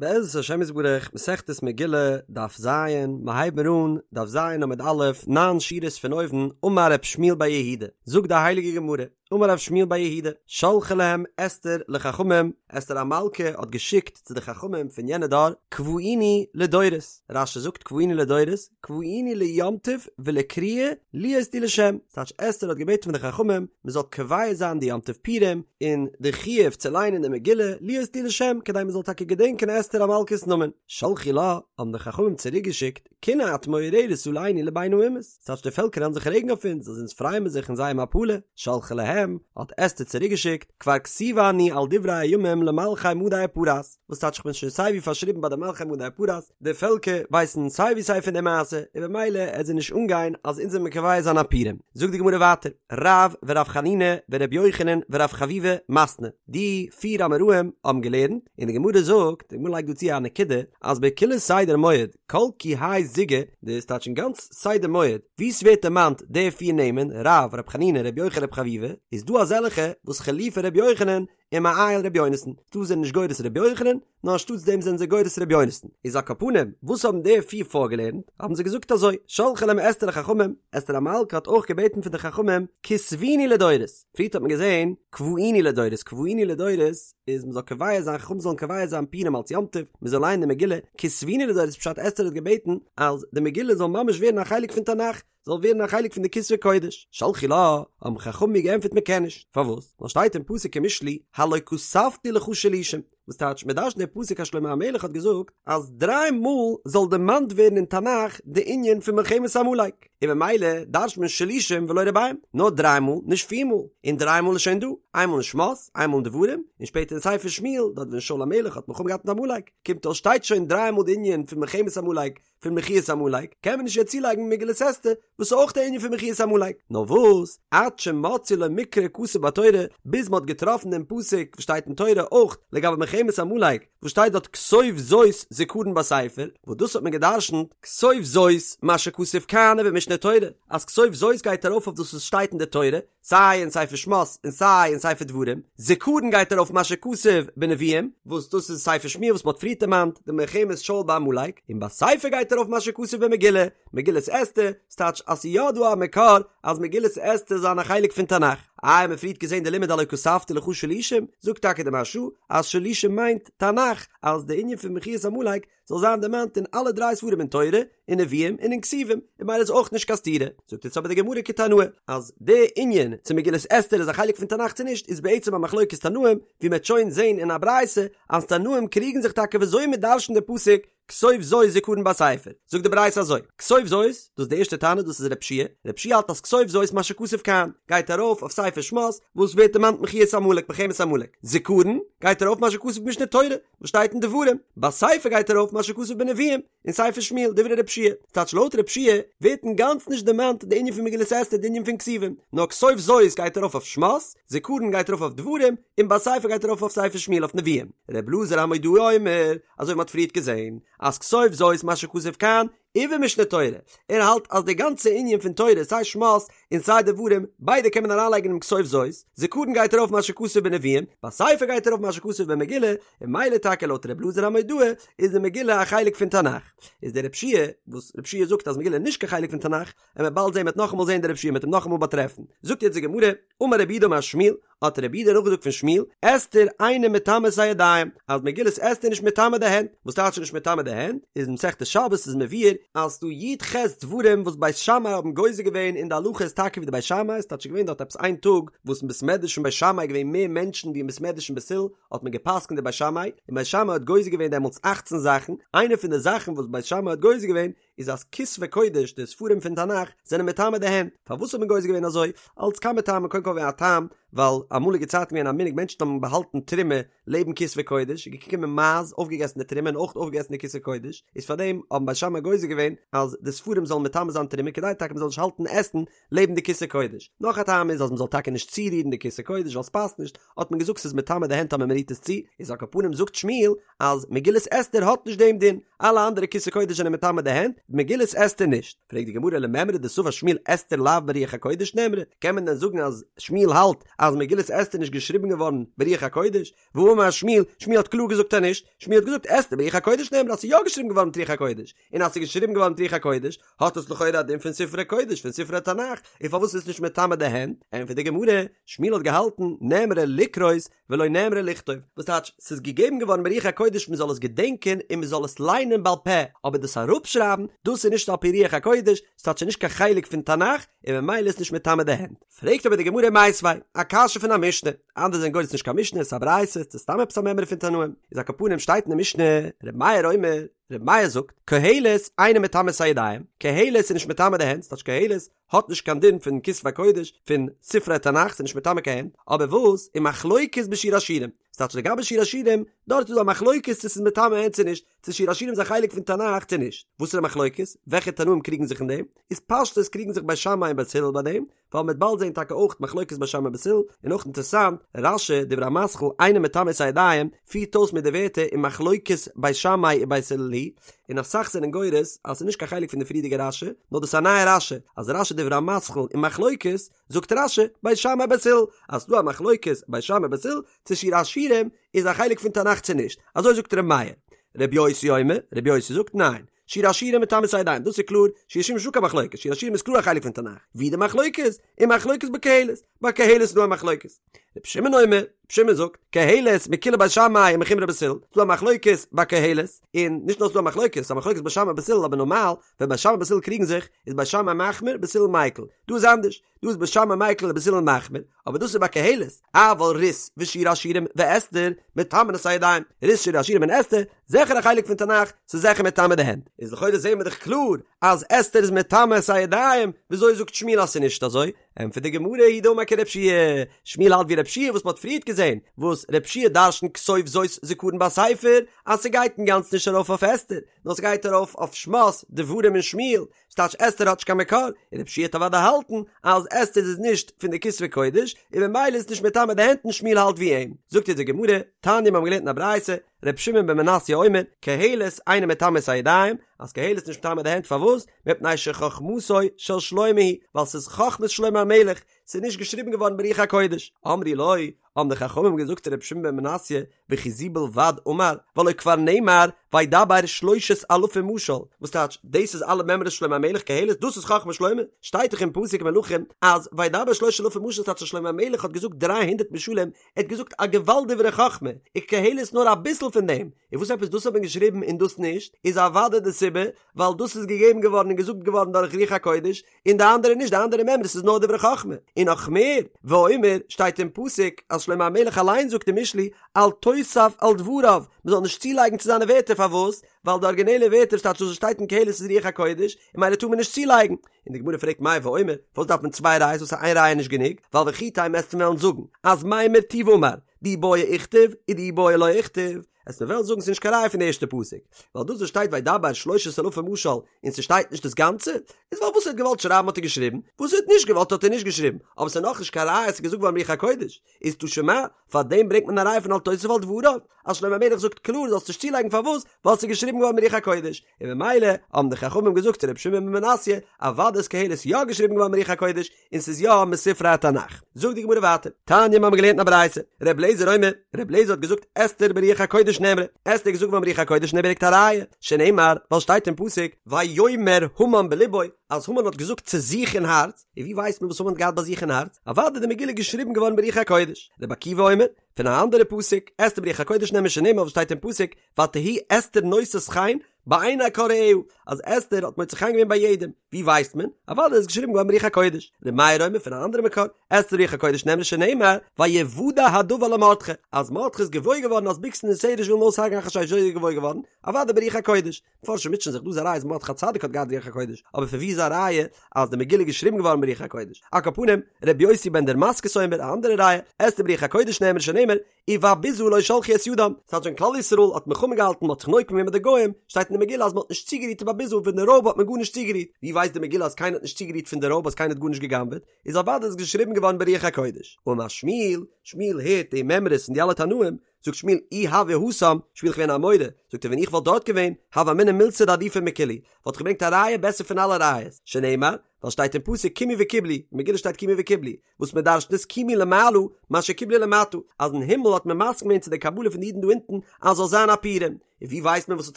בעזרת השם יתברך, מסכת מגילה, דף ז, מיר הייבן אן, דף ז עמוד א', ניין שורות פון אויבן, אמר רב שמואל בר יהודה, זאגט די הייליגע גמרא, אמר רב שמואל בר יהודה, שלחה להם אסתר לחכמים, אסתר המלכה האט געשיקט צו די חכמים פון יענע דור, קבעוני לדורות, רש"י זאגט קבעוני לדורות, קבעוני ליום טוב ולקריאה להיות לי לשם, ס'טייטש אסתר האט געבעטן פון די חכמים מען זאל קובע זיין די יום טוב פורים און די חיוב צו ליינען די מגילה להיות לי לשם כדי מען זאל טאקע געדענקען אסתר המלכה'ס נאמען. שלחו לה, האבן די חכמים צוריק געשיקט, קנאה את מעוררת עלינו לבין האומות, ס'טייטש די פעלקער וועלן זיך רעגן אויף אונז אז אונז פרייען מיר זיך אין זייער מפלה, שלחה להם, האט אסתר צוריק געשיקט, כבר כתובה אני על דברי הימים למלכי מדי ופרס, וואס טייטש כ'בין שוין סייווי פארשריבן ביי די מלכי מדי ופרס, די פעלקער ווייסן סיי ווי סיי פון די מעשה, און במילא עט זיי נישט אנגיין אז אונז זעמיר קובע זיין א פורים. זאגט די גמרא ווייטער, רב ורב חנינא ור' יוחנן ורב חביבא מתנו, די פיר אמוראים האבן געלערנט, און די גמרא זאגט, די גמרא לייגט דא צו א נקודה, אז בכולהו סדר מועד, כל כי האי זוגא, דאס טייטש אין גאנץ סדר מועד, וואו ס'ווערט דערמאנט די פיר נעמען, רב, רב חנינא, ר' יוחנן, רב חביבא, איז דא אזעלכע וואס חליפי ר' יוחנן, ומעייל ר' יונתן, דא זענען נישט גורס ר' יוחנן, נאר אנשטאטס דעם זענען זיי גורס ר' יונתן. איז על כל פנים, וואס האבן די פיר פארגעלערנט? האבן זיי געזאגט אזוי, שלחה להם אסתר לחכמים, אסתר המלכה האט אויך געבעטן פון די חכמים, כתבוני לדורות. פריערט האט מען געזען, קבעוני לדורות, קבעוני לדורות איז מען זאל קובע זיין, חכמים זאלן קובע זיין פורים אלס יום טוב, מען זאל לייענען די מגילה, כתבוני לדורות פשט אסתר האט געבעטן אז די מגילה זאל ממש ווערן א חלק פון תנך, זאל ווערן א חלק פון די כתבי קודש. שלחו לה, האבן חכמים געענטפערט מען קען נישט. פארוואס? ווייל שטייט אין פסוק אין משלי, הלא כתבתי לך שלישים. וואס טייטש, מען דרש'נט די פסוק אז שלמה המלך האט געזאגט אז דריי מאל זאל דערמאנט ווערן אין תנך די ענין פון מלחמת עמלק. און במילא דרש'נט מען שלישים ולא רבעים, נאר דריי מאל, נישט פיר מאל. און דריי מאל איז שוין דא, איינמאל אין שמות, איינמאל אין דברים, און שפעטער אין ספר שמואל, דארט ווען שאול המלך האט מלחמה געהאט מיט עמלק, קומט אויס שטייט שוין דריי מאל די ענין פון מלחמת עמלק, פון מחיית עמלק, קען מען נישט יעצט צולייגן מגילת אסתר, וואס איז אויך די ענין פון מחיית עמלק. נאר וואס, עד שמצאו לו מקרא כתוב בתורה, ביז מען האט געטראפן דעם פסוק וואס שטייט אין תורה אויך לגבי מלחמת עמלק, וואס שטייט דארט כתוב זאת זכרון בספר, וואס דאס האט מען גע'דרש'נט, כתוב זאת מה שכתוב כאן ובמשנה תורה, אז כתוב זאת גייט ארויף אויף דאס וואס שטייט אין די תורה, סיי אין ספר שמות און סיי אין ספר דברים, זכרון גייט ארויף מה שכתוב בנביאים, וואס דאס איז ספר שמואל וואס מ'האט פריערט דערמאנט, די מלחמת שאול בעמלק, און בספר גייט ארויף מה שכתוב במגילה, מגילת אסתר, ס'טייטש אז ס'איז יא דא א מקור אז מגילת אסתר זאל זיין א חלק פון תנך. איי מ'האט פריערט געזען די לימוד הלא כתבתי לך שלישים, זאגט טאקע די מהרש"א אז שלישים מיינט תנך, אז די ענין פון מחיית עמלק זאל זיין דערמאנט אין אלע דריי ספרים אין תורה, אין נביאים און אין כתובים, און ממילא איז אויך נישט קיין סתירה. זאגט יעצט אבער די גמרא כתנאי, אז די ענין צו מגילת אסתר איז א חלק פון תנך צו נישט איז בעצם א מחלוקת תנאים, ווי מ'וועט שוין זען אין א ברייתא אז תנאים קריגן זיך טאקע וויאזוי מ'דרש'נט די פסוק כתוב זאת זכרון בספר. זאגט די ברייתא אזוי, כתוב זאת, דאס איז די ערשטע תנא דאס איז רב שיע, רב שיע האלט אז כתוב זאת מה שכתוב כאן, גייט ארויף אויף ספר שמות וואס ווערט דערמאנט מחיית עמלק מלחמת עמלק, זכרון, גייט ארויף מה שכתוב במשנה תורה, וואס שטייט אין דברים, בספר גייט ארויף מה שכתוב בנביאים, אין ספר שמואל, דברי רב שיע, ס'טייטש לויט רב שיע ווערט אינגאנצן נישט דערמאנט די ענין פון מגילת אסתר די ענין פון כתובים, נאר כתוב זאת גייט ארויף אויף שמות, זכרון גייט ארויף אויף דברים, און בספר גייט ארויף אויף ספר שמואל אויף נביאים. ר' אלעזר המודעי אומר, אזוי ווי מ'האט פריערט געזען, אז כתוב זאת מה שכתוב כאן, ובמשנה תורה, ער האלט אז די גאנצע ענין פון תורה סיי שמות און סיי דברים ביידע קען מען אריינלייגן אינעם כתוב זאת, זכרון גייט ארויף מה שכתוב בנביאים, בספר גייט ארויף מה שכתוב במגילה, און ממילא טאקע לויט ר' אלעזר המודעי איז די מגילה א חלק פון תנך. איז דער רב שיע וואס רב שיע זאגט אז מגילה איז נישט קיין חלק פון תנך, עמיר באלד זעהן מ'וועט נאכאמאל זעהן די רב שיע מ'וועט אים נאכאמאל באטרעפן. זאגט יעצט די גמרא, אמר רב יהודה אמר שמואל, האט רב יהודה נאכגעזאגט פון שמואל, אסתר אינה מטמאה את הידיים, אז מגילת אסתר איז נישט מטמא די הענט, וואס טייטש נישט מטמא די הענט? איז אין מסכת שבת איז מבואר אז ס'דא י"ח דברים וואס בית שמאי האבן גוזר געווען און די הלכה איז טאקע ווי די בית שמאי, ס'טייטש געווען דארט עפעס איין טאג וואס אין בית מדרש פון בית שמאי איז געווען מער מענטשן ווי אין בית מדרש פון בית הלל, האט מען געפסקנט די בית שמאי, און בית שמאי האט גוזר געווען דעמאלטס אכצן זאכן, איינע פון די זאכן וואס בית שמאי האט גוזר געווען איז אז כתבי קודש, די ספרים פון תנך, זענען מטמא די הענט. פארוואס האט מען גוזר געווען אזוי? אלץ כמה טעמים, קודם כל געווען א טעם, ווייל אמאליגע צייטן געווען א מנהג מענטשן האבן באהאלטן תרומה לעבן כתבי קודש, איז געקומען מייז, אויפגעגעסן די תרומה און אויך אויפגעגעסן די כתבי קודש, איז פארדעם האבן בית שמאי גוזר געווען אז די ספרים זאלן מטמא זיין תרומה כדי טאקע מען זאל נישט האלטן עסן לעבן די כתבי קודש. נאך א טעם איז אז מען זאל טאקע נישט צורירן די כתבי קודש ווייל ס'פאסט נישט, האט מען געזאגט ס'איז מטמא די הענט אז מען רירט עס צו, איז על כל פנים זאגט שמואל אז מגילת אסתר האט נישט דעם דין. אלע אנדערע כתבי קודש זענען מטמא די הענט, מגילת אסתר נישט. פרעגט די גמרא למימרא דסבר שמואל אסתר לאו ברוח הקודש נאמרה, קען מען דען זאגן אז שמואל האלט אז מגילת אסתר נישט געשריבן געווארן ברוח הקודש? והאמר שמואל, שמואל האט קלאר געזאגט אז נישט, שמואל האט געזאגט אסתר ברוח הקודש נאמרה אז ס'איז יא געשריבן געווארן מיט רוח הקודש, און אז ס'איז געשריבן געווארן מיט רוח הקודש האט עס לכאורה א דין פון ספרי קודש פון ספרי תנך, און פארוואס איז עס נישט מטמא די הענט? ענטפערט די גמרא, שמואל האט געהאלטן נאמרה לקרות ולא נאמרה לכתוב, וואס טייטש, ס'איז געגעבן געווארן ברוח הקודש מ'זאל עס געדענקען און מ'זאל עס ליינען בעל פה, אבער דאס אראפשרייבן, דאס איז נישט על פי רוח הקודש, ס'טייטש ס'איז נישט קיין חלק פון תנך, און ממילא איז נישט מטמא די הענט. פרעגט אבער די גמרא מיתיבי, א קשיא פון א משנה, אנדערע זענען גורס נישט קיין משנה, ס'איז א ברייתא, ס'איז סתם עפעס א מימרא פון תנאים, איז על כל פנים שטייט אין די משנה, ר' מאיר אומר, ר' מאיר זאגט, קהלת אינו מטמא את הידיים, קהלת איז נישט מטמא די הענט, ס'טייטש קהלת האט נישט קיין דין פון כתבי קודש, פון ספרי תנך, ס'איז נישט מטמא קיין הענט, אבער וואס, ומחלוקת בשיר השירים, ס'טייטש לגבי שיר השירים, דארט איז דא א מחלוקת צו ס'איז מטמא הענט צו נישט, צו שיר השירים איז א חלק פון תנך צו נישט, וואס איז די מחלוקת? וועלכע תנאים קריגן זיך אין דעם? איז פשטות קריגן זיך בית שמאי און בית הלל ביי דעם, ווייל מ'וועט באלד זען טאקע אויך מחלוקת בית שמאי בית הלל, און אויך אינטערסאנט, רש"י, דיבור המתחיל, אינו מטמא את הידיים, פירט אויס מיט די ווערטער ומחלוקת בית שמאי ובית הלל היא, און אסאך זענען גורס אז ס'איז נישט קיין חלק פון די פריערדיגע רש"י, נאר דאס איז א נייע רש"י, אז רש"י דיבור המתחיל ומחלוקת, זאגט רש"י, בית שמאי בית הלל, אז ס'דא א מחלוקת בית שמאי בית הלל, צו שיר השירים איז א חלק פון תנך צו נישט, אזוי זאגט ר' מאיר. ר' יוסי אומר, ר' יוסי זאגט ניין, שיר השירים מטמא את הידיים, דאס איז קלאר, שיר השירים איז נישטא קיין מחלוקת, שיר השירים איז קלאר א חלק פון תנך, ווי די מחלוקת? ומחלוקת בקהלת, ביי קהלת איז דא א מחלוקת. ר' שמעון אומר, ר' שמעון זאגט, קהלת מקולי בית שמאי ומחומרי בית הלל, ס'דא א מחלוקת ביי קהלת, און נישט נאר ס'דא א מחלוקת, ס'איז א מחלוקת בית שמאי בית הלל, אבער נארמאל, ווען בית שמאי בית הלל קריגן זיך, איז בית שמאי מחמיר, בית הלל מיקל, דא איז אנדערש, דא איז בית שמאי מיקל און בית הלל מחמיר, אבער דאס איז ביי קהלת, אבל רות ושיר השירים ואסתר מטמאין את הידיים, רות שיר השירים און אסתר, זעכער א חלק פון תנך, ס'איז זעכער מטמא די הענט. איז לכאורה זעהן מיר דאך קלאר אז אסתר איז מטמא את הידיים, וויאזוי זאגט שמואל אז ס'איז נישט אזוי? ענטפערט די גמרא הוא דאמר כר' יהושע, שמואל האלט ווי ר' יהושע וואס מ'האט פריערט געזעהן, וואס ר' יהושע דרש'נט כתוב זאת זכרון בספר, אז ס'גייט אינגאנצן נישט ארויף אויף אסתר, נאר ס'גייט ארויף אויף שמות, דברים און שמואל, ס'טייטש אסתר האט נישט קיין מקור, און ר' יהושע וועט אוודאי האלטן אז אסתר איז נישט פון די כתבי קודש, און ממילא איז נישט מטמא די הענט און שמואל האלט ווי אים. זאגט אונז די גמרא, תניא מיר האבן געלערנט אין א ברייתא, ר' שמעון בן מנסיא אומר, קהלת אינו מטמא את הידיים, אז קהלת איז נישט מטמא די הענט פארוואס? מפני שחכמתו של שלמה היא, ווייל ס'איז חכמת שלמה המלך, ס'איז נישט געשריבן געווארן ברוח הקודש. אמרו לו, האבן די חכמים געזאגט צו ר' שמעון בן מנסיא, וכי זו בלבד אמר, והלא כבר נאמר, וידבר שלושת אלפים משל, וואס טייטש, דאס איז אלע מימרות שלמה המלך קהלת, דאס איז חכמת שלמה? שטייט דאך אין פסוק אין מלכים, אז וידבר שלושת אלפים משל טייטש אז שלמה המלך האט געזאגט דריי הונדערט משלים, ער האט געזאגט א געוואלד דברי חכמה, און קהלת נאר אביסל פון דעם, און וואס עפעס דאס האט מען געשריבן און דאס נישט, איז אוודאי די סיבה, ווייל דאס איז געגעבן געווארן און געזאגט געווארן דורך רוח הקודש, און די אנדערע נישט, די אנדערע מימרות איז נאר דברי חכמה, און נאך מער, ואומר, שטייט אין פסוק אז שלמה המלך אליין זאגט אין משלי, אל תוסף על דבריו, מען זאל נישט צולייגן צו זיינע ווערטער, פארוואס? ווייל די ארגינעלע ווערטער ס'טייטש וואס שטייט אין קהלת איז רוח הקודש, און ממילא טאר מען נישט צולייגן. און די גמרא פרעגט מאי ואומר, פארוואס דארף מען צוויי ראיות וואס איין ראיה איז נישט גענוג, ווייל וכי תימא וועסטו וועלן זאגן אז מימר טובא אמר, דאי בעי איכתב, ודאי בעי לא איכתב, וועסט מיר וועלן זאגן ס'איז נישט קיין ראיה פון די ערשטע פסוק, ווייל דאס וואס שטייט וידבר שלושת אלפים משל און ס'שטייט נישט דאס גאנצע, איז ווייל וואס ער האט געוואלט שרייבן האט ער געשריבן, וואס ער האט נישט געוואלט האט ער נישט געשריבן, אבער ס'איז נאכנישט קיין ראיה אז ס'איז געזאגט געווארן ברוח הקודש, איז תא שמע, פארדעם ברענגט מען א ראיה פון אל תוסף על דבריו, אז שלמה המלך זאגט קלאר זאלסט נישט צולייגן פארוואס, ווייל ס'איז געשריבן געווארן ברוח הקודש, און ממילא האבן די חכמים געזאגט צו רבי שמעון בן מנסיא, אוודאי איז קהלת יא געשריבן געווארן ברוח הקודש, און ס'איז יא מספרי התנך. זאגט די גמרא ווייטער, תניא מיר האבן געלערנט אין א ברייתא, ר' אליעזר אומר, ר' אליעזר האט געזאגט אסתר ברוח הקודש נאמרה, אסתר איז געזאגט געווארן ברוח הקודש און ער ברענגט א ראיה, שנאמר, ווייל שטייט אין פסוק, ויאמר המן בלבו, אז המן האט געזאגט צו זיך אין הארץ, און ווי ווייסט מען וואס המן האט געהאט ביי זיך אין הארץ? אוודאי די מגילה איז געשריבן געווארן ברוח הקודש. רבי עקיבא אומר, פון א אנדערע פסוק, אסתר ברוח הקודש נאמרה שנאמר וואס שטייט אין פסוק, ותהי אסתר נושאת חן בעיני כל רואיה, אז אסתר האט מוצא חן געווען ביי יעדעם, ווי ווייסט מען? אוודאי איז געשריבן געווארן ברוח הקודש. ר' מאיר אומר פון א אנדערע מקור, אסתר ברוח הקודש נאמרה שנאמר, ויוודע הדבר למרדכי, אז מרדכי איז געוואויר געווארן אז בגתן און תרש ווילן אויסהרג'ענען אחשורוש איז ער געוואויר געווארן, אוודאי ברוח הקודש. מפרשים מוטשען זיך דא איז א ראיה אז מרדכי הצדיק האט געהאט רוח הקודש, אבער פון ווי איז א ראיה אז די מגילה איז געשריבן געווארן ברוח הקודש? על כל פנים, ר' יוסי בן דורמסקית אומר, א אנדערע ראיה, אסתר ברוח הקודש נאמרה שנאמר, ובביזה לא שלחו את ידם, ס'טייטש ווען כלל ישראל האט מלחמה געהאלטן מ'האט זיך נוקם געווען מיט די גוים, שטייט אין די מגילה אז מ'האט נישט צוגערירט ובביזה פון די רויב האט מען גארנישט צוגערירט, ווי ווייסט. ווייסט די מגילה אז קיינער האט נישט צוגערירט פון די רויב אז קיינער האט גארנישט גע'גנב'עט, איז אוודאי איז געשריבן געווארן ברוח הקודש. אמר שמואל, שמואל הערט די מימרות פון די אלע תנאים, זאגט שמואל אי הוה התם, שמואל איז געווען אן אמורא, זאגט ער ווען איך וואלט דארט געווען, הוה אמינא מילתא דעדיפא מכולהו, וואלט איך געברענגט א ראיה בעסער פון אלע ראיות, שנאמר, ווייל שטייט אין פסוק קיימו וקיבלו, אין מגילה שטייט קיימו וקיבלו, וואס מען דרש'נט איז קיימו למעלה מה שקיבלו למטה, אז אין הימל האט מען מסכים געווען צו די קבלה פון די אידן דא אונטן אז זאל זיין א פורים, און ווי ווייסט מען וואס האט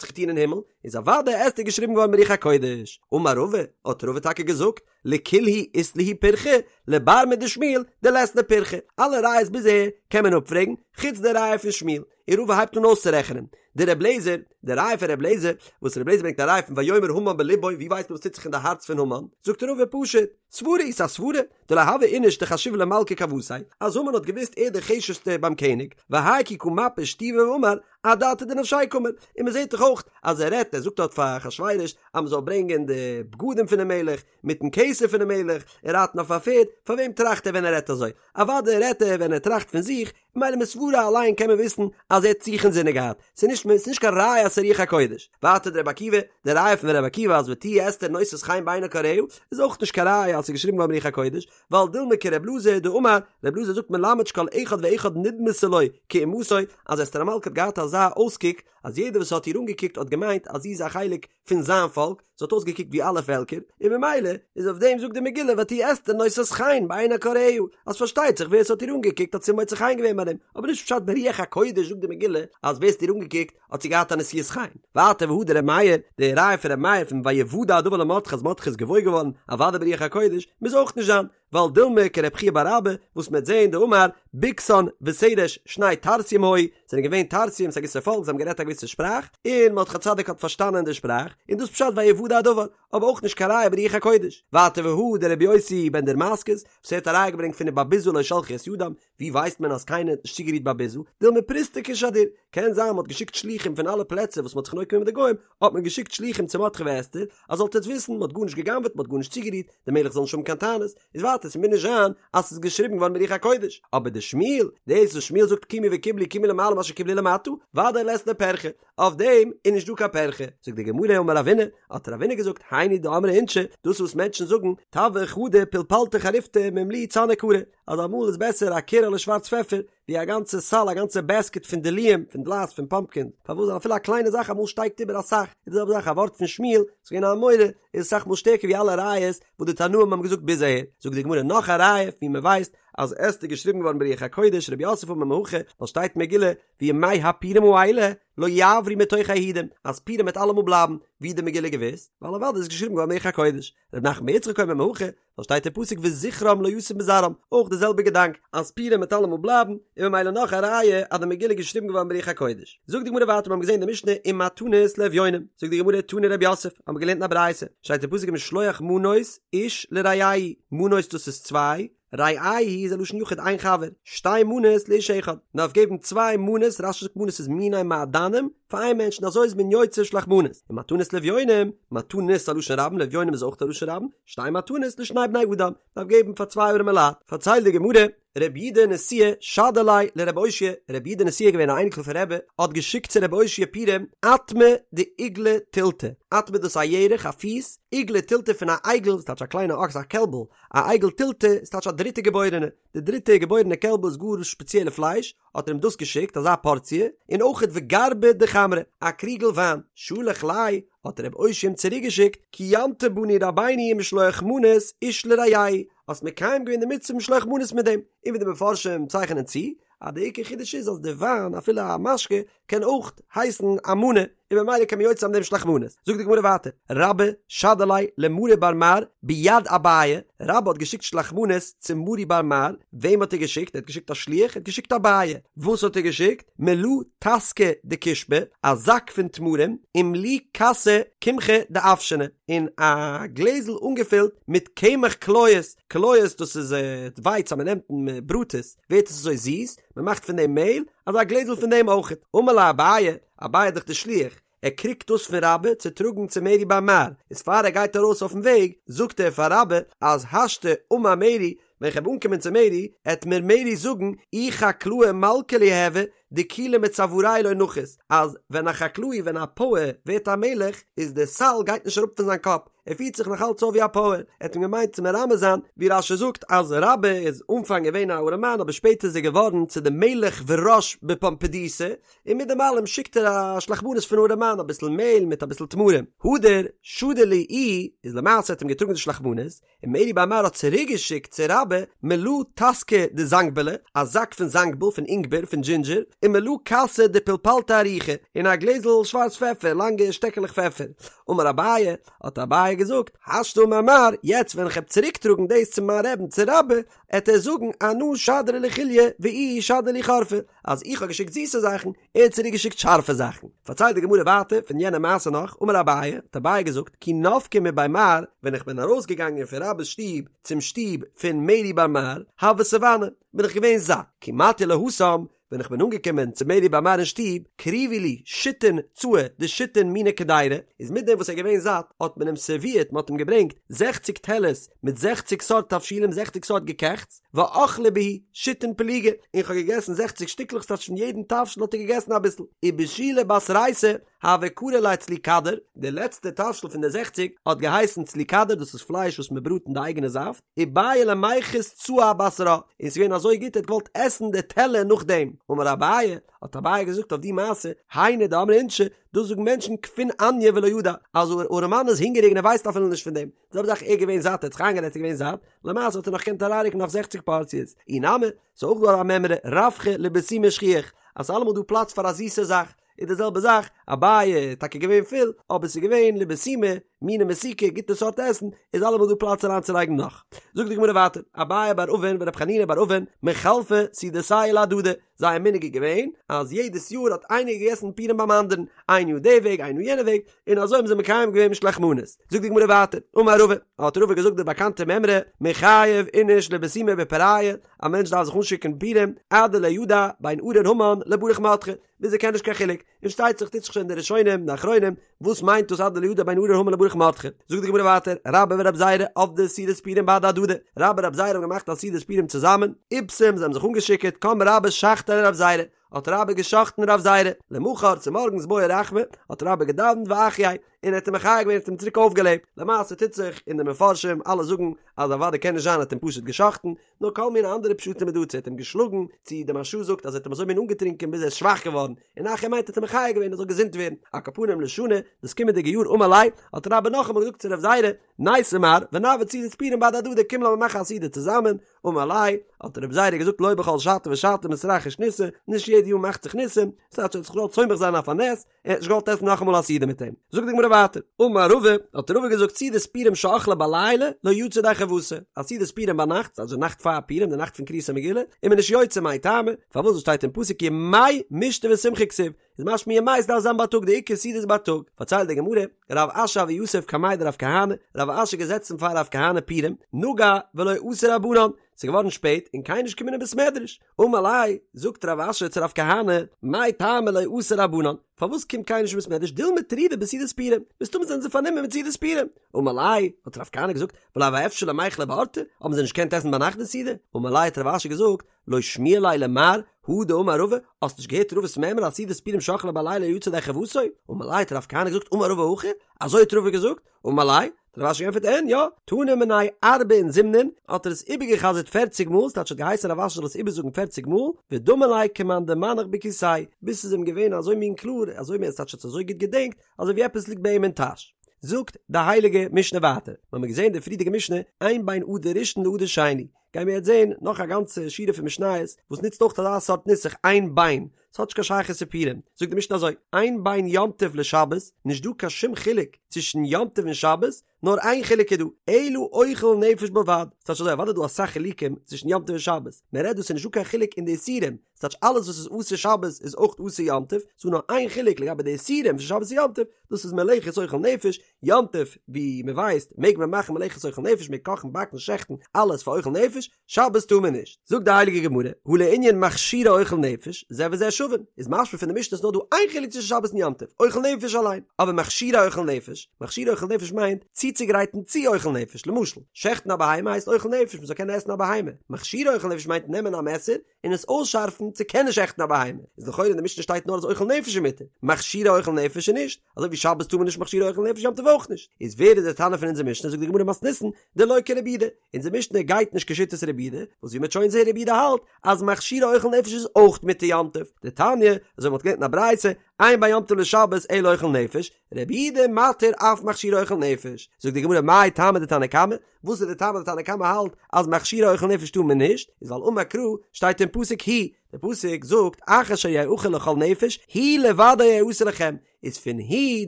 זיך געטון אין הימל, איז אוודאי אסתר געשריבן געווארן ברוח הקודש. אמר רבא, האט רבא טאקע געזאגט, לכולהו אית להו פירכא, לבר מדשמואל דלית ליה פירכא, אלע ראיות ביז אהער קען מען אפפרעגן, חוץ די ראיה פון שמואל, און רבא הייבט אן אויסצורעכענען, דר' אליעזר, די ראיה פון ר' אליעזר, וואס ר' אליעזר ברענגט א ראיה פון ויאמר המן בלבו, ווי ווייסט מען וואס טוט זיך אין די הארץ פון המן, זאגט רבא פשוט, סברא היא, ס'איז א סברא, דלא הוה איניש דחשיב ליה מלכא כוותיה, אז המן האט געוואוסט ער דער חשובסטער ביים קעניג, והאי כי קא מפיש טובא ואמר, אדעתא דנפשיה קאמר, און מען זעט דאך אויך אז ער רעדט, ער זאגט דארט פאר אחשורוש אז מען זאל ברענגען די בגדים פונעם מלך, מיטן כתר פונעם מלך, און רייטן אויף א פערד, פאר וועם טראכט ער ווען ער רעדט אזוי? אוודאי רעדט ער ווען ער טראכט פון זיך, ממילא מסברא אליין קען מען וויסן אז ער האט זיך אינזינען געהאט, ס'איז נישט ס'איז נישט קיין ראיה אז ס'איז רוח הקודש. ווייטער דרבי עקיבא, די ראיה פון רבי עקיבא אז ותהי אסתר נושאת חן בעיני קוראיה, איז אויך נישט קיין ראיה אז ס'איז געשריבן געווארן ברוח הקודש, ווייל דילמא כר' אלעזר דאמר, ר' אלעזר זאגט מלמד שכל אחד ואחד נדמתה לו כאומתו, אז אסתר המלכה האט געהאט אזא אויסקוק אז יעדער וואס האט איר אנגעקוקט האט געמיינט אז זי איז א חלק פון זיין פאלק, זי האט אויסגעקוקט ווי אלע פעלקער, און ממילא איז אויף דעם זאגט די מגילה ותהי אסתר נושאת חן בעיני קוראיה, אז פארשטייט זיך ווער עס האט איר אנגעקוקט האט זי מוצא חן געווען ביי דעם, אבער נישט פשט ברוח הקודש זאגט די מגילה אז ווער עס האט איר אנגעקוקט האט זי געהאט א נשיאת חן. ווייטער והא דר' מאיר, די ראיה פון ר' מאיר פון ויוודע הדבר למרדכי אז מרדכי איז געוואויר געווארן אוודאי ברוח הקודש, מוז אויך נישט זיין, ווייל דילמא כרב חייא בר אבא, וואס מ'וועט זעהן דאמר בגתן ותרש שני טרסיים היו, זענען געווען טרסיים, ס'איז א געוויסע פאלק, זיי האבן גערעדט א געוויסע שפראך, און מרדכי הצדיק האט פארשטאנען די שפראך, און דאס פשט ויוודע הדבר, אבער אויך נישט קיין ראיה ברוח הקודש. ווייטער והא דרבי יוסי בן דורמסקית, וואס ער האט א ראיה געברענגט פון ובביזה לא שלחו את ידם, ווי ווייסט מען אז קיינער האט נישט צוגערירט בביזה? דילמא פריסתקי שדור, קען זיין מ'האט געשיקט שלוחים פון אלע פלעצער וואס מ'האט זיך נוקם געווען מיט די גוים, האט מען געשיקט שלוחים צו מרדכי ואסתר, אז זאלט עטץ וויסן, מ'האט גארנישט גע'גנב'עט, מ'האט גארנישט צוגערירט, דער מלך זאל נישט האבן קיין טענות, איז ווייטער ס'מוז נישט זיין אז ס'איז געשריבן געווארן ברוח הקודש, אבער דשמואל, דאס וואס שמואל זאגט קיימו וקיבלו קיימו למעלה מה שקיבלו למטה, ודאי לית ליה פירכא, אויף דעם איז נישט דא קיין פירכא, זאגט די גמרא אמר רבינא, האט רבינא געזאגט היינו דאמרי אינשי, דאס וואס מענטשן זאגן, טבא חדא פלפלתא חריפתא ממלי צנא קרי, אז אמאל איז בעסער א קערעלע שווארץ פעפער, ווי א גאנצע סל, א גאנצע בעסקעט פון דלועים, פון דלעת, פון פאמפקין, פארוואס אפילו א קליינע זאך אמאל שטייגט איבער אסאך, איז די זעלבע זאך א ווארט פון שמואל, ס'איז געווען אן אמורא, איז אסאך מאל שטערקער ווי אלע ראיות וואס די תנאים האבן געזאגט ביז אהער, זאגט די גמרא נאך א ראיה ווי מען ווייסט אז אסתר איז געשריבן געווארן ברוח הקודש רב יוסף אמר מהכא, ווייל שטייט אין מגילה וימי הפורים האלה לא יעברו מתוך היהודים, אז פורים וועט אלעמאל בלייבן, ווי האט די מגילה געוואוסט, ווייל אוודאי איז געשריבן געווארן ברוח הקודש, ר' נחמן בר יצחק אומר מהכא, ווייל שטייט אין פסוק וזכרם לא יסור מזרעם, אויך די זעלבע געדאנק אז פורים וועט אלעמאל בלייבן, און ממילא נאך א ראיה אז די מגילה איז געשריבן געווארן ברוח הקודש. זאגט די גמרא ווייטער מיר האבן געזען די משנה ומתנות לאביונים, זאגט די גמרא תני רב יוסף, האבן מיר געלערנט אין א ברייתא, שטייט אין פסוק ומשלוח מנות איש לרעהו, מנות דאס איז צוויי, רעהו איז א לשון יחיד איין חבר, שתי מנות לאיש אחד, מען דארף געבן צוויי מנות, רש"י זאגט מנות איז מיני מעדנים, פאר איין מענטש און אזוי איז מען יוצא שלח מנות, ומתנות לאביונים, מתנות איז א לשון רבים, לאביונים איז אויך א לשון רבים, שתי מתנות לשני בני אדם, מען דארף געבן פאר צוויי ארעמע לייט, פארציילט די גמרא, רבי יהודה נשיאה שדר ליה לרבי אושעיא, רבי יהודה נשיאה איז געווען א אייניקל פון רבי, האט געשיקט צו רבי אושעיא פורים, אטמא דעיגלא תילתא, אטמא דאס א ירך, א פיס, עיגלא תילתא פון א עגל, ס'טייטש א קליינע אקס, א קעלבל, א עגל תילתא איז טייטש א דריטע געבוירענע, די דריטע געבוירענע קעלבל איז גאר שפעציעלע פלייש, האט ער אים דאס געשיקט אזא פארציע, און אויכעט וגרבא דחמרא, א קריגל וויין, שלח ליה, האט ר' אושעיא אים צוריק געשיקט, קיימת בנו רבינו משלוח מנות איש לרעהו, האסט מקיים געווען די מצוה משלוח מנות מיט דעם, און ווי די מפרשים צייכענען צו, אז די עיקר חידוש איז אז די וויין אפילו א משקה קען אויך הייסן א מנה און ממילא קען מען יוצא זיין מיט דעם שלח מנות. זאגט די גמרא ווייטער, רבה שדר ליה למרי בר מר ביד אביי, רבה האט געשיקט שלח מנות צו מרי בר מר, וועם האט ער געשיקט? ער האט געשיקט א שליח? ער האט געשיקט אביי. וואס האט ער געשיקט? מלא טסקא דכושפא, א זאק פון תמרים, ומלי כסא קמחא דעפשנא, און א גלעזל אנגעפילט מיט קמח קליות, קליות דאס איז ווייץ אז מען נעמט און מען בראט עס, ווערט עס אזוי זיס, מען מאכט פון דעם מעהל, אזא גלעזל פון דעם אויכעט. אמר ליה אביי, אביי איז דאך דער שליח, ער קריגט דאס פון רבה צו טראגן צו מרי בר מר, איז פאר ער גייט ארויס אויפן וועג, זאגט ער פאר רבה, אז השתא אמר מרי, ווען כ'וועל אנקומען צו מרי, עט מיר מרי זאגן, אי חקלאה מלכא ליהוי, דיקולא מצואריה לא נחית, אז ווען א חקלאי ווען א פויער ווערט א מלך איז די סל גייט נישט אראפ פון זיין קאפ, ער פירט זיך נאך אלץ אויף ווי א פויער, ער האט אים געמיינט צו מרמז זיין ווי רש"י זאגט אז רבה איז אנפאנג געווען א ארעמאן אבער שפעטער איז ער געווארן צו די מלך וראש בפומבדיתא, און מיט דעם אלעם שיקט ער א שלח מנות פון ארעמאן אביסל מעהל מיט אביסל תמרים, הדר שדר להו איהו, איז למעשה האט אים געטראגן די שלח מנות, און מרי בר מר האט צוריק געשיקט צו רבה מלא טסקא דזנגבילא, א זאק פון זנגביל, פון אינגבער, פון דזשינדזשער, און מלא כסא דפלפלתא אריכא, און א גלעזל שווארץ פעפער, לאנגע שטעקעלעך פעפער. אמר אביי, האט אביי געזאגט, השתא אמר מר, יעצט ווען איך העב צוריק טראגן דאס צו מיין רעבן צו רבה, עט ער זאגן אנא שדרי לי חוליא ואיהו שדר לי חרפא, אז איך האב געשיקט זיסע זאכן, ער האט צוריק געשיקט שארפע זאכן. פארציילט די גמרא ווייטער פון יענע מעשה נאך, אמר אביי, האט אביי געזאגט, כי נפקי מבי מר, ווען איך בין ארויסגעגאנגען פון רבה'ס שטוב צום שטוב פון מרי בר מר, הוה שבענא, בין איך געווען זאט, כי מטאי להתם, ווען איך בין אנגעקומען צו מרי בר מר אין שטוב, קריבו לי שיתין צעי דשיתין מיני קדירה, איז מיט דעם וואס ער איז געווען זאט, האט מען אים סערווירט, מען האט אים געברענגט זעכציג טעלערס מיט זעכציג סארט תבשילים, זעכציג סארט געקעכטס, ואכלי בהו שיתין פלוגי, און כ'האב געגעסן זעכציג שטיקלעך ס'טייטש פון יעדן תבשיל האט ער געגעסן אביסל, ובישולא בתרייתא הוה קרי ליה צלי קדר, די לעצטע תבשיל פון די זעכציג האט געהייסן צלי קדר דאס איז פלייש וואס מען בראט אין די אייגענע זאפט, ובעי למיחת צעא אבתרה, און ס'איז געווען אזוי גוט ער האט געוואלט עסן די טעלער נאכדעם, אמר אביי, האט אביי געזאגט אויף די מעשה, היינו דאמרי אינשי, דאס זאגן מענטשן כפין עניא ולא ידע, אז אן ארעמאן איז הונגעריג און ער ווייסט אפילו נישט פון דעם, די זעלבע זאך ער געווען זאט ער האט זיך איינגערעדט ער איז געווען זאט, למעשה האט ער נאך געקענט אריינרוקן נאך זעכציג פארציעס, אי נמי, ס'איז אויך דא א מימרא רווחא לבסומי שכיח, אז ס'איז אלעמאל דא פלאץ פאר א זיסע זאך, איז די זעלבע זאך, אביי איז טאקע געווען פול, אבער ס'איז געווען לבסומי, מיני מתיקה, גוטע סארט עסן, איז אלעמאל דא פלאץ אריינצולייגן נאך. זאגט די גמרא ווייטער, אביי בר אבין ורב חנינא בר אבין, מחלפי סעודתייהו להדדי, זייער מנהג איז געווען אז יעדעס יאר האט איינער געגעסן פורים ביים אנדערן, איין יאר די וועג איין יאר יענע וועג, און אזוי האבן זיי מקיים געווען משלוח מנות. זאגט די גמרא ווייטער, אמר רבא, האט רבא געזאגט די באקאנטע מימרא, מיחייב איניש לבסומי בפוריא, א מענטש דארף זיך אנשיכור'ן פורים, עד דלא ידע בין ארור המן לברוך מרדכי, ביז ער קען נישט קיין חילוק, און שטייט זיך טוט זיך שוין די ראשונים די אחרונים, וואס מיינט דאס עד דלא ידע בין ארור המן לברוך מרדכי? זאגט די גמרא ווייטער, רבה ורב זירא עבדי סעודת פורים בהדי הדדי, רבה און רב זירא האבן געמאכט א סעודת פורים צוזאמען, איבשום זיי האבן זיך אנגעשיכורט, קם רבה שחטיה לרב זירא, האט רבה געשחט'ן רב זירא, למחר צומארגנס בעי רחמי, האט רבה געדאווענט ואחייה, און ער האט אים מחיה געווען האט אים צוריק אויפגעלעבט, למעשה טוט זיך אין די מפרשים אלע זאגן אז אוודאי קען נישט זיין ער האט אים פשוט געשחט'ן, נאר כל מיני אנדערע פשטים איז דא צו ער האט אים געשלאגן, צו די מהרש"א זאגט אז ער האט אים אזוי מין אנגעטרינקען ביז ער איז שוואך געווארן, און אחייה מיינט ער האט אים מחיה געווען ער זאל געזונט ווערן, על כל פנים לשנה, דאס קומענדיגע יאר אמר ליה, האט רבה נאכאמאל געזאגט צו רב זירא, ניתי מר, ונעביד סעודת פורים בהדי הדדי קום לאמיר מאכן א סעודה צוזאמען, אמר ליה, האט רב זירא געזאגט לא בכל שתא ושתא מתרחיש ניסא, נישט יעדע יאר מאכט זיך ניסים, ס'טייטש ער האט זיך געוואלט סומך זיין אויף א נס, ער האט נישט געוואלט עסן נאכאמאל א סעודה מיט אים. זאגט די גמרא ווייטער, אמר רבא, האט רבא געזאגט סעודת פורים שאכלה בלילה לא יצא ידי חובתו, א סעודת פורים ביינאכט, אלזא נאכט פאר פורים, די נאכט פון קריאת המגילה, איז מען נישט יוצא מאי טעמא, פארוואס וואס שטייט אין פסוק ימי משתה ושמחה כתיב, איז משמע ימי עס דארף זיין בייטאג די עיקר סעודה איז בייטאג, פארציילט די גמרא, רב אשי הוה יתיב קמיה דרב כהנא, רב אשי געזעצן פאר רב כהנא פורים, נגה ולא אתו רבנן, ס'איז געווארן שפעט און קיינער נישט געקומען אין בית מדרש, אמר ליה, זאגט רב אשי צו רב כהנא, מאי טעמא לא אתו רבנן, פארוואס קומט קיינער נישט אין בית מדרש, דילמא טרידי בסעודת פורים, מסתמא זענען זיי פארנומען מיט סעודת פורים, אמר ליה, האט רב כהנא געזאגט, ולא הוה אפשר למיכלה באורתא, האבן זיי נישט געקענט עסן ביינאכט די סעודה, אמר ליה האט רב אשי געזאגט, לא שמיע ליה למר, הא דאמר רבא, האסט נישט געהערט רבא'ס מימרא אז סעודת פורים שאכלה בלילה לא יצא ידי חובתו, אמר ליה האט רב כהנא געזאגט אמר רבא הכי, אזוי האט רבא געזאגט, אמר ליה, האט רב אשי געענטפערט אין, יא, תנא מיניה ארבעין זימנין, האט ער עס איבערגע'חזר'ט פערציג מאל, ס'טייטש האט געהייסן רב אשי זאל עס איבערזאגן פערציג מאל, ודמי ליה כמאן דמנח בכיסיה, ביז ס'איז אים געווען אזוי מין קלאר, אזוי מין, ס'טייטש האט עס אזוי גוט געדענקט, אזוי ווי עפעס ליגט ביי אים אין טאש. זאגט די הייליגע משנה ווייטער, מ'האמיר געזען די פריערדיגע משנה, אין בין אדר ראשון לאדר שני, גיימיר יעצט זען נאך א גאנצע שורה פון משניות וואס נוצט אויך אזא סארט נוסח אין בין, ס'האט נישט קיין שייכות צו פורים, זאגט די משנה אזוי, אין בין יום טוב לשבת, נישט דא קיין שום חילוק צווישן יום טוב און שבת, נאר איין חילוק איז דא, אלא אוכל נפש בלבד, ס'טייטש אזוי, אוודאי איז דא אסאך חילוקים צווישן יום טוב און שבת, מען רעדט דא ס'איז נישט דא קיין חילוק אין די איסורים, ס'טייטש אלעס וואס איז אסור שבת איז אויך אסור יום טוב, ס'דא נאר איין חילוק לגבי די איסורים פון שבת און יום טוב, דאס איז מלאכת אוכל נפש, יום טוב ווי מען ווייסט מעג מען מאכן מלאכת אוכל נפש, מען מעג קאכן באקן שעכטן אלעס פאר אוכל נפש. נפש, שבת טאר מען נישט. זאגט די הייליגע גמרא, הא לענין מכשירי אוכל נפש, זה וזה שווין, איז משמע פון די משנה אז נאר דא איין חילוק צווישן שבת און יום טוב, אוכל נפש אליין, אבער מכשירי אוכל נפש, מכשירי אוכל נפש מיינט, צוצוגרייטן צו אוכל נפש, למשל, שעכטן א בהמה הייסט אוכל נפש, מען זאל קענען עסן א בהמה, מכשירי אוכל נפש מיינט נעמען א מעסער און עס אויסשארפן צו קענען שעכטן א בהמה, איז לכאורה אין די משנה שטייט נאר אז אוכל נפש איז מותר, מכשירי אוכל נפש איז נישט, אזוי ווי שבת טאר מען נישט מכשירי אוכל נפש יום טוב אויך נישט, איז ווער איז דער תנא פון אונזער משנה, זאגט די גמרא מתניתין דלא כרבי יהודה, אונזער משנה גייט נישט כשיטת רבי יהודה, וואס ווי מ'האט שוין זעהן רבי יהודה האלט אז מכשירי אוכל נפש איז אויך מותר יום טוב, דתניא, אזוי ווי מ'האט געלערנט אין א ברייתא, אין בין יום טוב לשבת אלא אוכל נפש, רבי יהודה מתיר אף מכשירי אוכל נפש, זאגט די גמרא מאי טעמא דתנא קמא, וואס איז די טעם אז די תנא קמא האלט אז מכשירי אוכל נפש טאר מען נישט, איז ווייל אמר קרא שטייט אין פסוק הוא, די פסוק זאגט אך אשר יאכל לכל נפש הוא לבדו יעשה לכם, איז פון הוא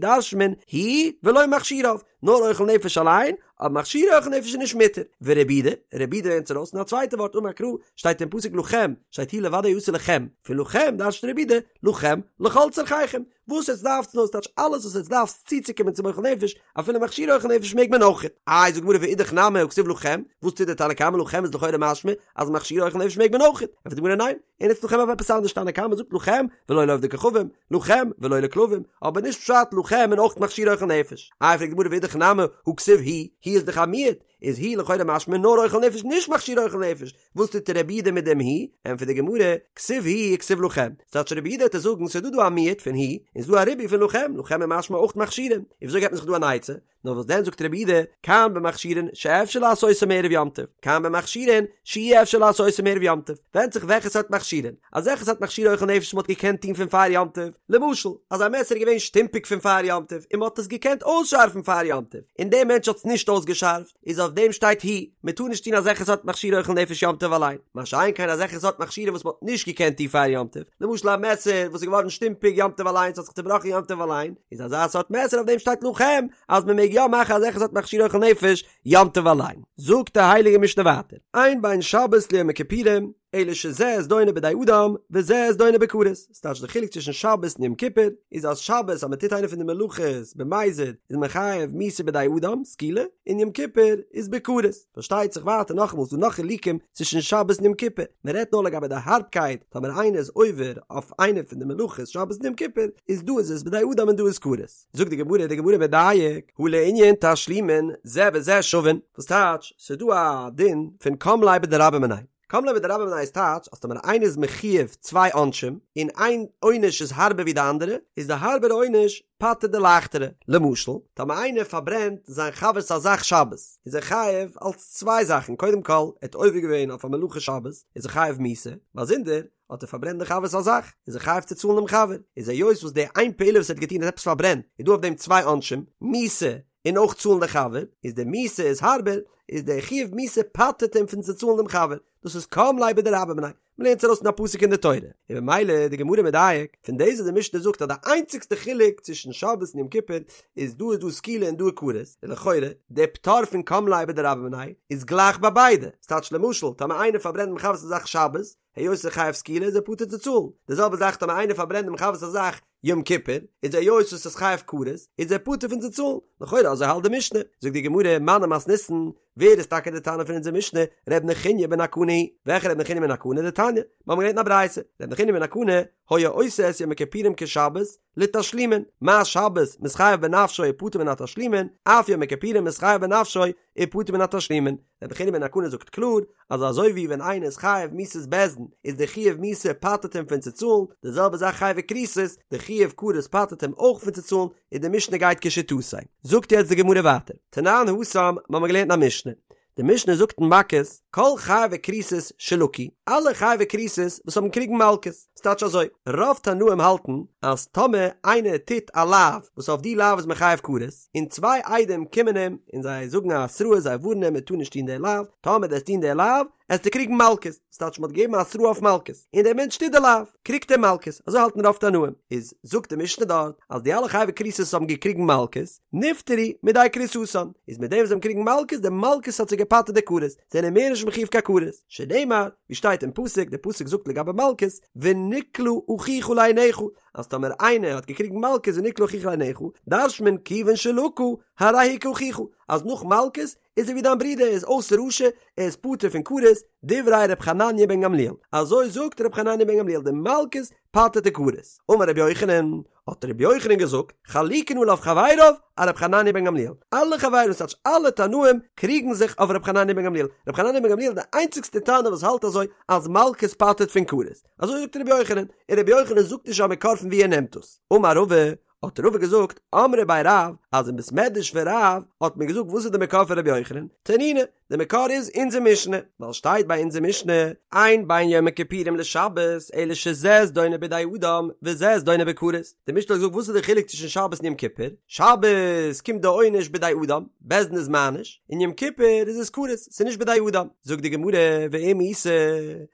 דרש'נט מען הוא ולא מכשיריו, נאר אוכל נפש אליין, אבער מכשירי אוכל נפש איז נישט מותר. ורבי יהודה, רבי יהודה לערנט ארויס אין א צווייטע ווארט אמר קרא, שטייט אין פסוק לכם, שטייט הוא לבדו יעשה לכם, פון לכם דרש'נט רבי יהודה, לכם, לכל צרכיכם, וואס עטס דארפטס נאר ס'טייטש אלעס וואס עטס דארפטס צוצוקומען צום אוכל נפש, אפילו מכשירי אוכל נפש מעג מען אויך. איי זאגט גמרא ואידך נמי הא כתיב לכם, וואס טוט דער תנא קמא לכם איז לכאורה משמע אז מכשירי אוכל נפש מעג מען אויך. ענטפערט די גמרא ניין, ער נוצט לכם אויף עפעס אנדערש תנא קמא זאגט לכם ולא לעובדי כוכבים, לכם ולא לכלבים, אבער נישט פשט לכם און אויך מכשירי אוכל נפש. איי פרעגט די גמרא ואידך נמי הא כתיב הוא, הוא איז דאך א מיעוט, איז הוא לכאורה משמע נאר אוכל נפש נישט מכשירי אוכל נפש, וואס טוט רבי יהודה מיט דעם הוא? ענטפערט די גמרא, כתיב הוא וכתיב לכם. ס'טייטש רבי יהודה וועט זאגן ס'איז דא דא א מיעוט פון הוא, און ס'איז דא א ריבוי פון לכם, לכם איז משמע אויך מכשירים, און וויאזוי געבט מען זיך דא אן עצה? נאר וואס דען זאגט רבי יהודה, כאן במכשירין שאפשר לעשותם מערב יום טוב, כאן במכשירין שאי אפשר לעשותם מערב יום טוב, ווענדט זיך וועלכע סארט מכשירין, אזעלכע סארט מכשירי אוכל נפש מ'האט געקענט טון פון פאר יום טוב, למשל, אז א מעסער איז געווען שטומפיג פון פאר יום טוב און מ'האט עס געקענט אויסשארפן פאר יום טוב, און דער מענטש האט עס נישט אויסגעשארפט, איז אויף דעם שטייט הוא, מען טאר נישט טון אזעלכע סארט מכשירי אוכל נפש יום טוב אליין, מה שאין כן אזעלכע סארט מכשירים וואס מען האט נישט געקענט טון פאר יום טוב, למשל א מעסער וואס איז געווארן שטומפיג יום טוב אליין, ס'האט זיך צובראכן יום טוב אליין, איז אזא סארט מעסער אויף דעם שטייט לכם אז מען מעג יא מאכן אזעלכע סארט מכשירי אוכל נפש יום טוב אליין. זאגט די הייליגע משנה ווייטער, אין בין שבת ליום הכיפורים, אלא שזה זדונו בידי אדם וזה זדונו בכרת, ס'טייטש די חילוק צווישן שבת און יום כיפור איז אז שבת אז מ'טוט איינע פון די מלאכות במזיד איז מען חייב מיתה בידי אדם, סקילה, און יום כיפור איז בכרת. פארשטייט זיך ווייטער נאכאמאל ס'דא נאך חילוקים צווישן שבת און יום כיפור, מ'רעדט נאר לגבי די הארבקייט טאמער איינער איז עובר אויף איינע פון די מלאכות שבת און יום כיפור איז דא איז עס בידי אדם און דא איז כרת. זאגט די גמרא, די גמרא מדייק, הא לענין תשלומין זה וזה שווין, וואס טייטש ס'דא א דין פון קם ליה בדרבה מיניה, קם ליה בדרבה מיניה איז טייטש אז טאמער איינער איז מחויב צוויי עונשים און איין עונש איז הארבער ווי די אנדערע איז די הארבערע עונש פטר'ט די לייכטערע, למשל טאמער איינער פארברענט זיין חבר'ס א זאך שבת איז ער חייב אלס צוויי זאכן קודם כל ער האט עובר געווען אויף א מלאכה שבת איז ער חייב מיתה, באזונדער האט ער פארברענט די חבר'ס א זאך איז ער חייב צו צאלן דעם חבר, איז היות וואס די איין פעולה וואס ער האט געטון איז עפעס פארברענט איז דא אויף דעם צוויי עונשים מיתה און אויך צאלן די חבר, איז די מיתה איז הארבער, איז די חיוב מיתה פטר'ט אים פון צו צאלן דעם חבר, דאס איז קם ליה בדרבה מיניה, מ'לערנט עס ארויס פון א פסוק אין די תורה, און ממילא די גמרא מדייק, פון דאס וואס די משנה זאגט אז די איינציגסטע חילוק צווישן שבת און יום כיפור איז דא איז דא סקילה און דא איז כרת, איז לכאורה די פטור פון קם ליה בדרבה מיניה איז גלייך ביי ביידע, ס'טייטש למשל טאמער איינער פארברענט דעם חבר'ס א זאך שבת, היות ער איז חייב סקילה איז ער פטור צו צאלן, די זעלבע זאך טאמער איינער פארברענט דעם חבר'ס א זאך יום כיפור, איז היות עס איז חייב כרת, איז ער פטור פון צו צאלן, לכאורה אזוי האלט די משנה, זאגט די גמרא, מני מתניתין, ווער איז טאקע די תנא פון אונזער משנה, ר' נחוניא בן הקנה היא, וועלכע ר' נחוניא בן הקנה דתניא, מיר האבן געלערנט אין א ברייתא, ר' נחוניא בן הקנה, היה עושה את יום הכיפורים כשבת, לתשלומין, מה שבת מתחייב בנפשו ופטור מן התשלומין, אף יום הכיפורים מתחייב בנפשו ופטור מן התשלומין. רבי נחוניא בן הקנה זאגט קלאר אז אזוי ווי ווען איינער איז חייב מיתת בית דין איז די חיוב מיתה פטר'ט אים פון צו צאלן, די זעלבע זאך חייבי כריתות, די חיוב כרת פטר'ט אים אויך פון צו צאלן, און די משנה גייט כשיטתו. זאגט יעצט די גמרא ווייטער, תנן התם, מ'האמיר געלערנט אין א משנה, די משנה זאגט אין מכות, כל חייבי כריתות שלקו, אלע חייבי כריתות וואס האבן קריגן מלקות, ס'טייטש אזוי, רוב תנאים האלטן אז טאמער איינער טוט א לאו וואס אויף די לאו איז מען חייב כרת, און צוויי עדים קומען אים און זיי זאגן א התראה זיי ווארענען אים ער טאר נישט טון די לאו, טאמער דו וועסט טון די לאו עסטו קריגן מלקות, ס'טייטש מ'האט געגעבן א התראה אויף מלקות, און דער מענטש טוט די לאו, קריגט ער מלקות, אזוי האלטן רוב תנאים, איז זאגט די משנה דארט אז די אלע חייבי כריתות וואס האבן געקריגן מלקות, נפטרו מידי כריתתן, איז מיט דעם וואס זיי האבן געקריגן מלקות, די מלקות האט זיי געפטר'ט. געפטר'ט די כרת, זענען מער נישט מחיוב קיין כרת, שנאמר, ווי שטייט אין פסוק, די פסוק זאגט לגבי מלקות, ונקלה אחיך לעיניך, אז טאמער איינער האט געקריגן מלקות ונקלה אחיך לעיניך, דרש'נט מען כיוון שלקה, הרי הוא כאחיך, אז נאך מלקות איז ער ווי דיין ברודער, ער איז אויס רשע, ער איז פטור פון כרת, דברי ר' חנניה בן גמליאל, אזוי זאגט ר' חנניה בן גמליאל, די מלקות פטר'ט די כרת. אמר רבי יוחנן, האט רבי יוחנן געזאגט, חלוקין עליו חבריו על רבי חנניה בן גמליאל, אלע חברים ס'טייטש אלע תנאים קריגן זיך אויף רבי חנניה בן גמליאל, רבי חנניה בן גמליאל איז די איינציגסטע תנא וואס האלט אזוי אז מלקות פטר'ט פון כרת, אזוי זאגט רבי יוחנן, און רבי יוחנן זאגט נישט א מקור פון ווי ער נעמט עס. אמר רבא, האט רבא געזאגט, אמרי בי רב, אז אין בית מדרש פון רב האט מען געזאגט וואס איז די מקור פון רבי יוחנן, תנינא, די מקור איז אונזער משנה, ווייל שטייט ביי אונזער משנה, אין בין יום הכיפורים לשבת אלא שזה זדונו בידי אדם וזה זדונו בכרת, די משנה האט געזאגט וואס איז די חילוק צווישן שבת און יום כיפור, שבת קומט די עונש בידי אדם, בית דין איז מעניש, און יום כיפור איז עס כרת, ס'איז נישט בידי אדם, זאגט די גמרא, ואם איתא,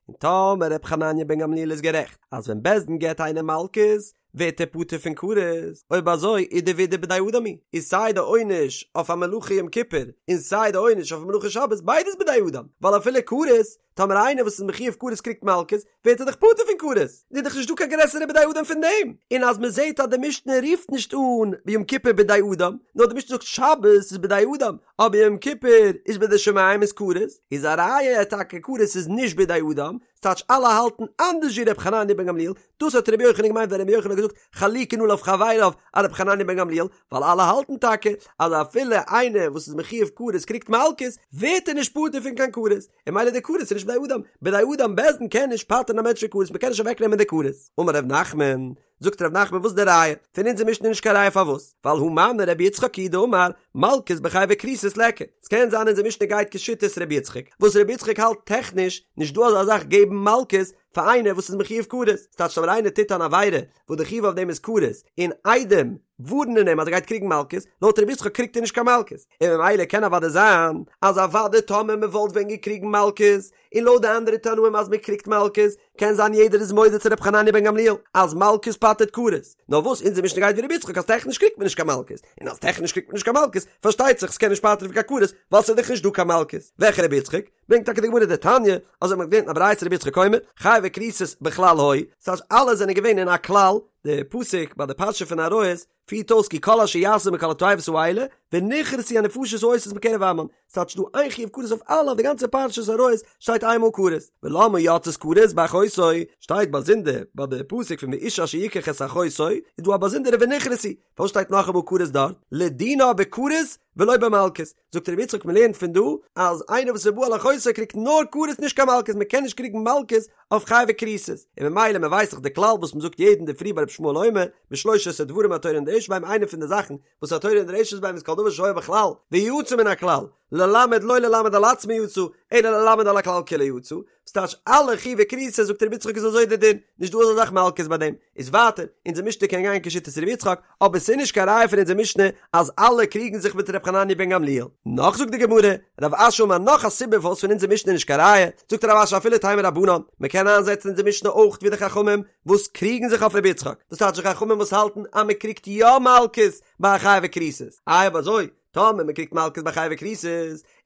און טאמער ר' חנניה בן גמליאל איז גערעכט אז ווען בית דין געבט איינעם מלקות, ווערט ער פטור פון כרת, אויב אזוי אידי ואידי בידי אדם היא, איז סיי די עונש אויף א מלאכה יום כיפור און סיי די עונש אויף א מלאכה שבת ביידע איז בידי אדם, ווייל אפילו כרת, טאמער איינער וואס איז מחיוב כרת קריגט מלקות, ווערט ער דאך פטור פון כרת, איז דאך נישט דא קיין גרעסערע בידי אדם פון דעם, און אז מען זעט אז די משנה רופט נישט אן ביום כיפור בידי אדם, נאר די משנה זאגט שבת איז בידי אדם, אבער יום כיפור איז בידי שמים איז כרת, איז א ראיה טאקע כרת איז נישט בידי אדם, ס'טייטש אלע האלטן אנדערש ווי ר' חנניה בן גמליאל, דאס האט רבי יוחנן געמיינט ווען רבי יוחנן האט געזאגט חלוקין עליו חבריו על רבי חנניה בן גמליאל, ווייל אלע האלטן טאקע אז אפילו איינער וואס איז מחיוב כרת קריגט מלקות, ווערט ער נישט פטור פון קיין כרת, און ממילא די כרת איז נישט בידי אדם, בידי אדם בית דין קען נישט פטר'ן א מענטש פון כרת, מ'קען נישט אוועק נעמען די כרת. אמר ר' נחמן, זאגט ר' נחמן וואס איז די ראיה? פון אונזער משנה איז נישט קיין ראיה פארוואס? ווייל הא מני רבי יצחק היא דאמר מלקות בחייבי כריתות ליכא, ס'קען זיין אונזער משנה גייט כשיטת רבי יצחק, וואס רבי יצחק האלט טעכניש נישט דא אזא זאך געבן מלקות פאר איינער וואס איז מחיוב כרת, ס'טייטש טאמער איינער טוט אן עבירה וואס די חיוב אויף דעם איז כרת, און עדים ווארענען אים אז ער גייט קריגן מלקות, לויט רבי יצחק קריגט ער נישט קיין מלקות, און ממילא קען אוודאי זיין אז אוודאי טאמער מ'וואלט ווען געקריגן מלקות, און לויט די אנדערע תנאים אז מ'קריגט מלקות, קען זיין יעדער איז מודה צו ר' חנניה בן גמליאל אז מלקות פטר'ט כרת, נאר וואס אונזער משנה גייט ווי רבי יצחק אז טעכניש קריגט מען נישט קיין מלקות, און אז טעכניש קריגט מען נישט קיין מלקות, פארשטייט זיך ס'קען נישט פטר'ן פון קיין כרת, ווייל ס'איז דאך נישט דא קיין מלקות. וועלכע רבי יצחק? ברענגט טאקע די גמרא דתניא, אזוי האט מען געלערנט אין א ברייתא רבי יצחק אומר, חייבי כריתות בכלל היו, ס'טייטש אלע זענען געווען אין א כלל, די פסוק ביי די פרשה פון עריות פירט אויס כי כל אשר יעשו מכל התועבות האלה, ונכרתו הנפשות העושות מקרב עמם, ס'טייטש דא איין חיוב כרת אויף אלע אויף די גאנצע פרשת עריות שטייט איינמאל כרת, ולמה יצאת כרת באחותו, שטייט באזונדער ביי די פסוק פון ואיש אשר יקח את אחותו, איז דא א באזונדערע ונכרתו, פארוואס שטייט נאכאמאל כרת דארט? לדינה בכרת ולא במלקות, זאגט רבי יצחק מ'לערנט פון דא אז איינער וואס איז בא על אחותו קריגט נאר כרת נישט קיין מלקות, מ'קען נישט קריגן מלקות אויף חייבי כריתות, און ממילא מ'ווייסט דאך די כלל וואס מ'זאגט יעדן אינדערפרי ביי רבי ישמעאל אומר, בשלוש עשרה דברים התורה נדרשת בהם איינע פון די זאכן וואס התורה נדרשת בהם איז כל דבר שהיה בכלל ויצא מן הכלל, ללמד לא ללמד על עצמו יצא, אלא ללמד על הכלל כולו יצא, ס'טייטש אלע חייבי כריתות זאגט רבי יצחק איז אזוי די דין, נישט דא אזא זאך מלקות ביי דעם, איז ווייטער, אונזער משנה קען גיין כשיטת רבי יצחק, אבער ס'איז נישט קיין ראיה פון אונזער משנה אז אלע קריגן זיך מיט ר' חנניה בן גמליאל. נאך זאגט די גמרא, רב אשי אמר נאך א סיבה פארוואס פון אונזער משנה איז נישט קיין ראיה, זאגט רב אשי אפילו תימא רבנן, מ'קען איינזעצן אונזער משנה אויך ווי די חכמים וואס קריגן זיך אויף רבי יצחק, דאס טייטש די חכמים וואס האלטן אז מ'קריגט יא מלקות ביי א חייבי כריתות, איי אויב אזוי טאמער מען קריגט מלקות ביי חייבי כריתות,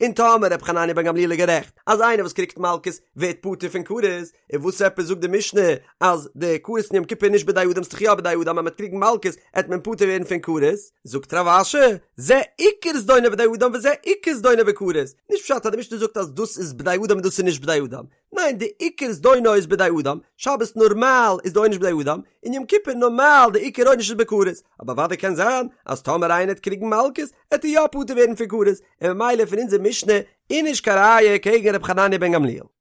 און טאמער רבי חנניה בן גמליאל איז גערעכט אז איינער וואס קריגט מלקות ווערט פטור פון כרת, און וואס עפעס זאגט די משנה אז די כרת אין יום כיפור איז נישט בידי אדם ס'דאך יא בידי אדם אז מען וועט קריגן מלקות עט מען פטור ווערן פון כרת, זאגט רב אשי, זה עיקר זדונו בידי אדם וזה עיקר זדונו בכרת, נישט פשט אז די משנה זאגט אז דאס איז בידי אדם און דאס איז נישט בידי אדם, ניין די עיקר זדונו איז בידי אדם, שבת נארמאל איז די עונש בידי אדם, און יום כיפור נארמאל די עיקר עונש איז בכרת, אבער אוודאי קען זיין אז טאמער איינער עט קריגן מלקות עט ער יא פטור ווערן פון כרת, און ממילא פון אונזער משנה איז נישט קיין ראיה קעגן ר' חנניה בן גמליאל.